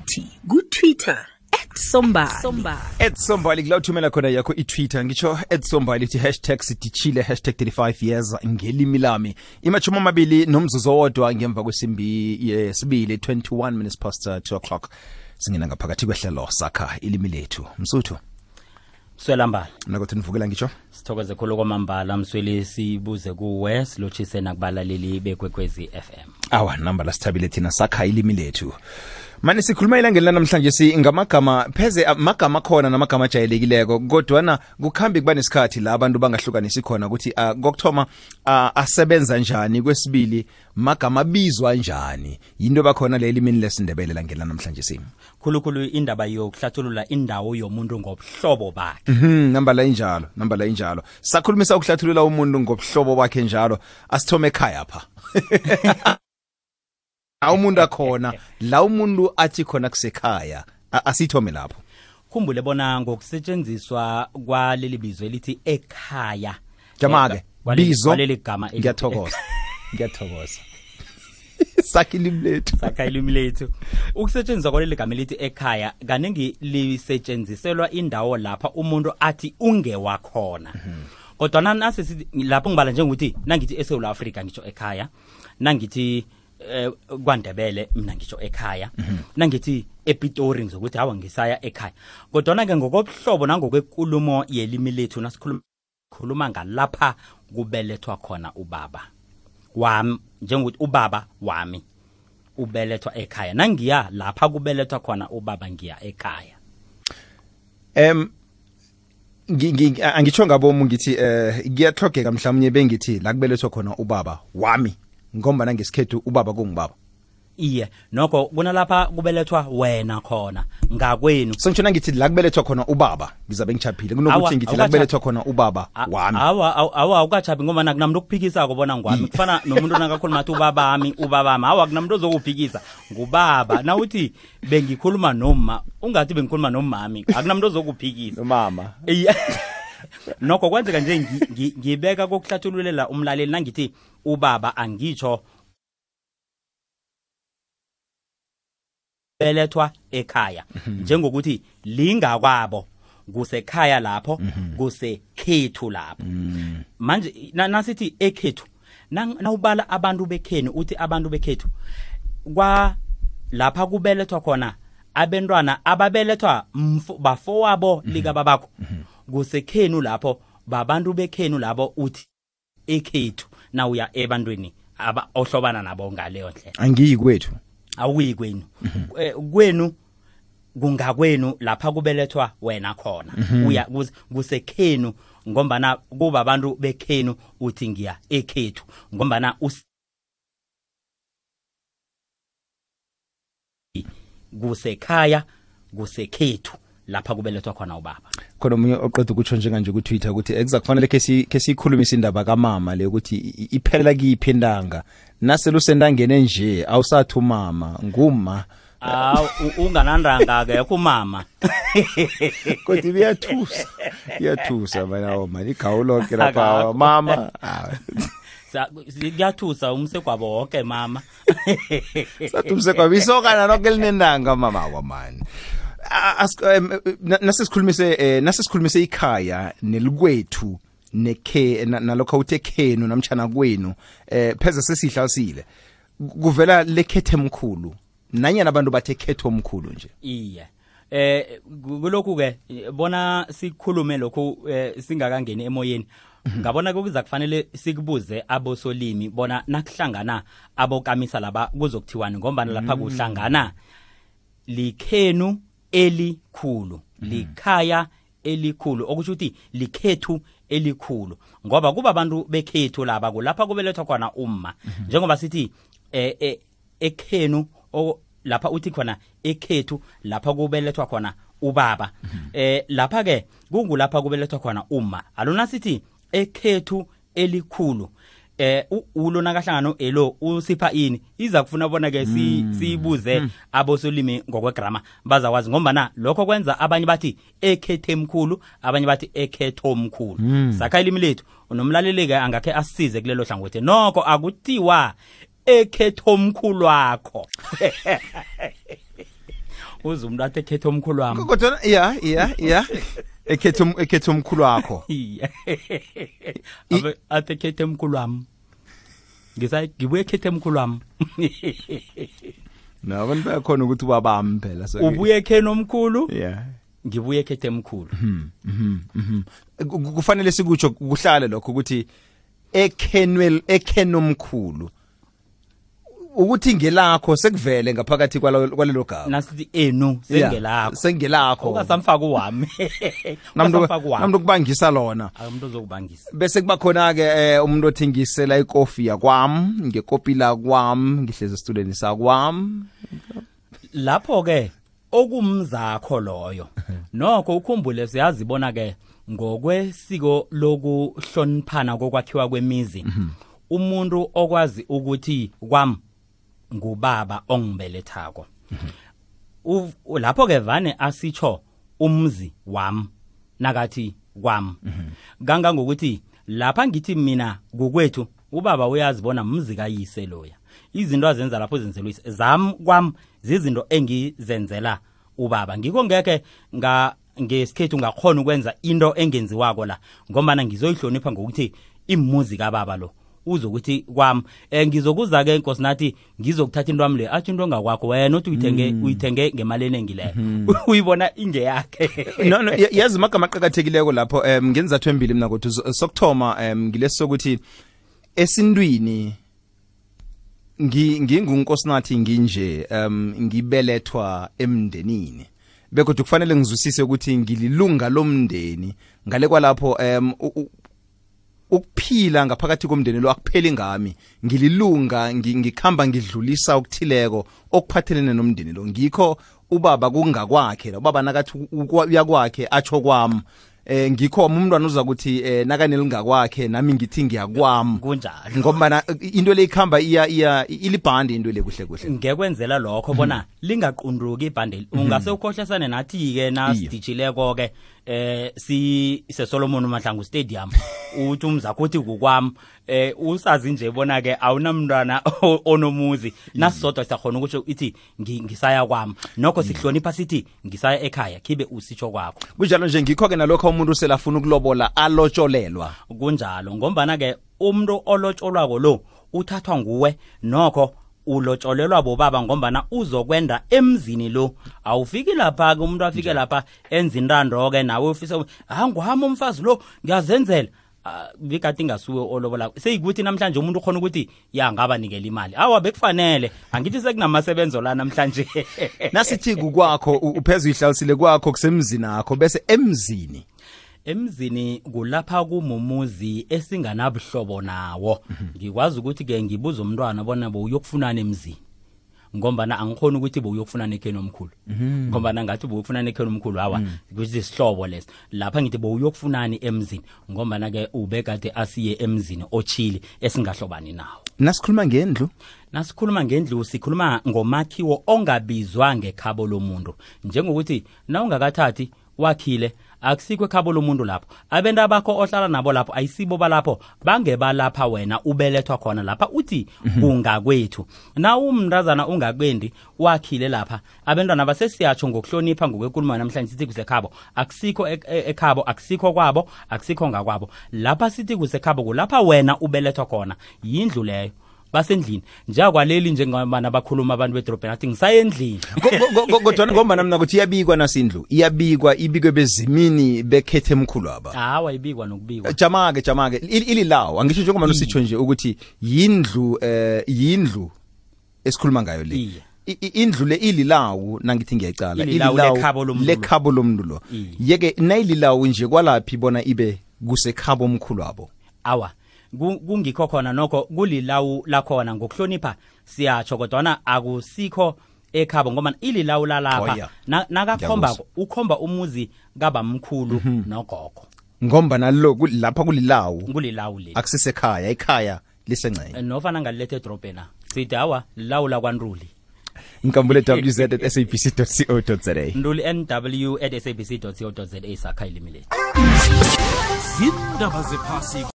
nathi ku-Twitter @sombali. @sombali kula uthumela khona yakho i-Twitter ngitsho @sombali ithi #sidichile #35 years ngelimi lami imachuma amabili nomzuzu owodwa ngemva kwesimbi yesibili 21 minutes past 2 o'clock singena ngaphakathi kwehlelo sakha ilimi lethu Msuthu Swelambala nakuthi nivukela ngitsho sithokoze khulu kwamambala Msweli sibuze kuwe silochise nakubalaleli bekwekwezi FM awa namba lasithabile thina sakha ilimi lethu manje sikhuluma ilangeni namhlanje singamagama pheze amagama khona namagama ajayelekileko kodwana kukhambi kuba nesikhathi la abantu bangahlukanisi khona ukuthi kokthoma asebenza njani kwesibili magama bizwa njani yinto bakhona le elimini lesindebele langena namhlanje khulukhulu indaba yokuhlathulula indawo yomuntu ngobuhlobo bakhe namba la injalo sakhulumisa ukuhlathulula umuntu ngobuhlobo bakhe njalo asithome ekhaya pha umuntu akhona la umuntu athi khona kusekhaya asithome lapho khumbule bona ngokusetshenziswa kwaleli bizo elithi ekhaya jamake bizo kwaleli gama ngiyathokoza sakha ilimi lethu ukusetshenziswa kwaleli gama elithi ekhaya kaningi lisetshenziselwa indawo lapha umuntu athi ungewakhona kodwa nasi lapho ngibala njengokuthi nangithi eSouth Africa ngitsho ekhaya nangithi kwaNdebele mina ngisho ekhaya nangithi ePitori ngizokuthi hawa ngisaya ekhaya kodwa ke ngokobuhlobo nangokwekulumo yelimi lethu nasikhuluma ngalapha kubelethwa khona ubaba wami njengokuthi ubaba wami ubelethwa ekhaya nangiya lapha kubelethwa khona ubaba ngiya ekhaya angitsho ngabomu ngithi kuyahlogeka mhlawumnye bengithi la kubelethwa khona ubaba wami ngombana ngesikhethu ubaba kungubaba iye nokho kunalapha kubelethwa wena khona ngakwenu sengitshona ngithi la kubelethwa khona ubaba ngizabe ngichaphile kunokuthi ngithi la kubelethwa khona ubaba wami awa ukachapi ngoba nakunamuntu okuphikisa kubona ngwami kufana nomuntu nakakhuluma athi ubabami awa kunamuntu ozokuphikisa ngubaba na uthi bengikhuluma noma ungathi bengikhuluma nomami akunamuntu ozokuphikisa nomama nokho kwenzeka nje ngibeka kokuhlathululela umlaleli nangithi ubaba angitsho belethwa ekhaya njengokuthi lingakwabo kusekhaya lapho kusekhethu lapho manje nasithi ekhethu nawubala abantu bekhenu uthi abantu bekhethu kwa lapha kubelethwa khona abantwana ababelethwa bafowabo lika babakho kusekhenu lapho babantu bekhenu labo uthi ekhethu na uya ebantwini ohlobana nabo ngaleyo ndlela angiyi kwethu awuyi kwenu kwenu kungakwenu lapha kubelethwa wena khona uya kusekhenu ngombana kuba abantu bekhenu uthi ngiya ekhethu ngombana kusekhaya kusekhethu lapha kubelethwa khona ubaba khona umunye oqeda ukutsho njenganje ku Twitter ukuthi ekuzakufanele ke sikhulumisa indaba kamama le ukuthi iphelela kiphi indanga naselusendangene nje awusathi umama nguma unganandanga ke kumama kodwa iyathusa manje igawulo ke lapha mama siyathusa umsekwabo wonke mama sathi umsekwabo isokana lonke linendanga mama wamani nasesikhulumise ikhaya nelikwethu nalokho uthe khenu namtjana kwenu pheze sesihlasile kuvela lekhethe emkhulu nanyana abantu bathe khetho omkhulu nje iye kulokhu ke bona sikhulume lokho singakangeni emoyeni ngabona kuza kufanele sikubuze abosolimi bona nakuhlangana abokamisa laba kuzokuthiwani ngombana lapha kuhlangana likhenu elikhulu likhaya elikhulu okusho ukuthi likhethu elikhulu ngoba kuba abantu bekhethu laba kulapha kubelethwa khona umma njengoba sithi ekhenu lapha uthi khona ekhethu lapha kubelethwa khona ubaba lapha ke kungulapha kubelethwa khona umma alona sithi ekhethu elikhulu ulo nakahlangano elo usipha ini iza kufuna bona ke sibuze abosolimi ngokwegrama bazakwazi ngoba lokho kwenza abanye bathi ekhethe emkhulu abanye bathi ekhetho omkhulu sakha ilimi lethu unomlaleli ke angakhe asisize kulelo hlangothi nokho akuthiwa ekhetho omkhulu wakho uze umuntu athi ekhethe omkhulu wami kodwa ya ekhethe umkhulu wakho athi ekhethe omkhulu wami ngibuye ekhethe omkhulu wami nabantu bayakhona ukuthi ubabami phela so ubuye ekheni omkhulu yeah ngibuye ekhethe emkhulu kufanele sikutsho kuhlale lokho ukuthi ekhenomkhulu ukuthi ngelakho sekuvele ngaphakathi kwalelo gama nasithi enu sengelakho sengelakho ungasamfaka uwami namuntu kubangisa lona akumuntu uzokubangisa bese kuba khona ke umuntu othengisela ikofi yakwami ngekopila kwami ngihleze student sakwami lapho ke okumzakho loyo nokho ukhumbule siyazibona ke ngokwesiko lokuhloniphana kokwakhiwa kwemizi umuntu okwazi ukuthi kwami ngubaba ongibelethako lapho ke vane asitsho umzi wami nakathi kwami ganga ngokuthi lapha ngithi mina ngokwethu ubaba uyazibona umzi kayise loya izinto azenza lapho zenzelwa zami kwami zizinto engizenzela ubaba ngikho ngeke ngesikhethu ngakhona ukwenza into engenziwako la ngoba ngizoyihlonipha ngokuthi imuzi kababa lo uzokuthi kwami ngizokuza ke inkosi nathi ngizokuthatha into wami le athi into ngakwakho wena uthi uyithenge ngemali enengileyo uyibona inge yakhe no yazi amagama aqhakathekileko lapho ngenzathu embili mina ukuthi sokuthoma ngilesokuthi esintwini ngingunkosi nathi nginje ngibelethwa emndenini bekodwa kufanele ngizwisise ukuthi ngililunga lomndeni ngale kwalapho ukuphila ngaphakathi komndeni lo akupheli ngami ngililunga ngikhamba ngidlulisa ukuthileko okuphathelene nomndeni lo ngikho ubaba kungakwakhe ubaba nakathi uyakwakhe atsho kwami ngikho umntwana uza ukuthi nakanelingakwakhe nami ngithi ngiyakwami kunjalo ngoba into le ikhamba ilibhandi into le kuhle kuhle ngekwenzela lokho bona lingaqunduki ibhandi ungase ukhohlesane nathi ke nasidijileko ke Solomon Mahlangu Stadium uthi umzakho uthi kukwami usazi nje bona ke awunamntwana onomuzi nasisodwa siyakhona ukuthi ithi ngisaya kwami nokho sihlonipha sithi ngisaya ekhaya khibe usitsho kwakho kunjalo nje ngikho ke nalokho umuntu selafuna ukulobola alotsholelwa kunjalo ngombana ke umuntu olotsholwako lo uthathwa nguwe nokho ulotsholelwa bobaba ngombana uzokwenda emzini lo awufiki lapha ke umuntu afike lapha enza intando ke nawe ufisa ngwami umfazi lo ngiyazenzela bikati ngasuwe olobola seyikuthi namhlanje umuntu ukhona ukuthi ya ngaba nikela imali awa bekufanele angithi sekunamasebenzo la namhlanje nasithi kukwakho uphezulu ihlalisile kwakho kusemzini akho bese emzini kulapha kumumuzi esinganabuhlobo nawo ngikwazi ukuthi ke ngibuza umntwana bona bowuyokufunana emzini ngombana angikhona ukuthi bowuyokufunana ekheni omkhulu ngombana ngathi bowuyokufunana ekheni omkhulu hawa ukuthi sihlobo lesi lapha ngithi bowuyokufunani emzini ngombana ke ubekade asiye emzini ochili esingahlobani nawo nasikhuluma ngendlu sikhuluma ngomakhiwo ongabizwa ngekhabo lomuntu njengokuthi na ungakathathi wakhile akusikho ekhabo lomuntu lapho abenda bakho ohlala nabo lapho ayisibo balapho bangeba lapha wena ubelethwa khona lapha uthi ungakwethu na umntazana ungakwendi wakhile lapha abantwana basesiyatsho ngokuhlonipha ngokwenkulumo namhlanje sithi kusekhabo akusikho ekhabo akusikho kwabo akusikho ngakwabo lapha sithi kusekhabo kulapha wena ubelethwa khona yindlu leyo basendlini njengakwaleli njengabana bakhuluma abantu bedrobheni athi ngisayendlini kodwa ngoba mina ukuthi iyabikwa nasindlu ibikwe bezimini bekhethe emkhulu aba hawa ibikwa nokubikwa jamake ililawo angisho njengoba nositsho nje ukuthi yindlu esikhuluma ngayo le indlu le ililawo nangithi ngiyacala lekhabo lomuntu lo yeke nayililawo nje kwalaphi bona ibe kusekhabo omkhulu abo awa kungikho khona nokho kulilawu lakhona ngokuhlonipha siyatsho kodwa akusikho ekhabo ngoba ililawu lalapha nakakhomba ukhomba umuzi kabamkhulu nogogo ngomba nalo lapha kulilawu le akusisekhaya ekhaya lisengcene nofana ngalilethe edrobheni sithi hawa lilawu lakwaNruli Nkambule wz@sabc.co.za Nduli NW@sabc.co.za sakha ilimile Zindaba zephasi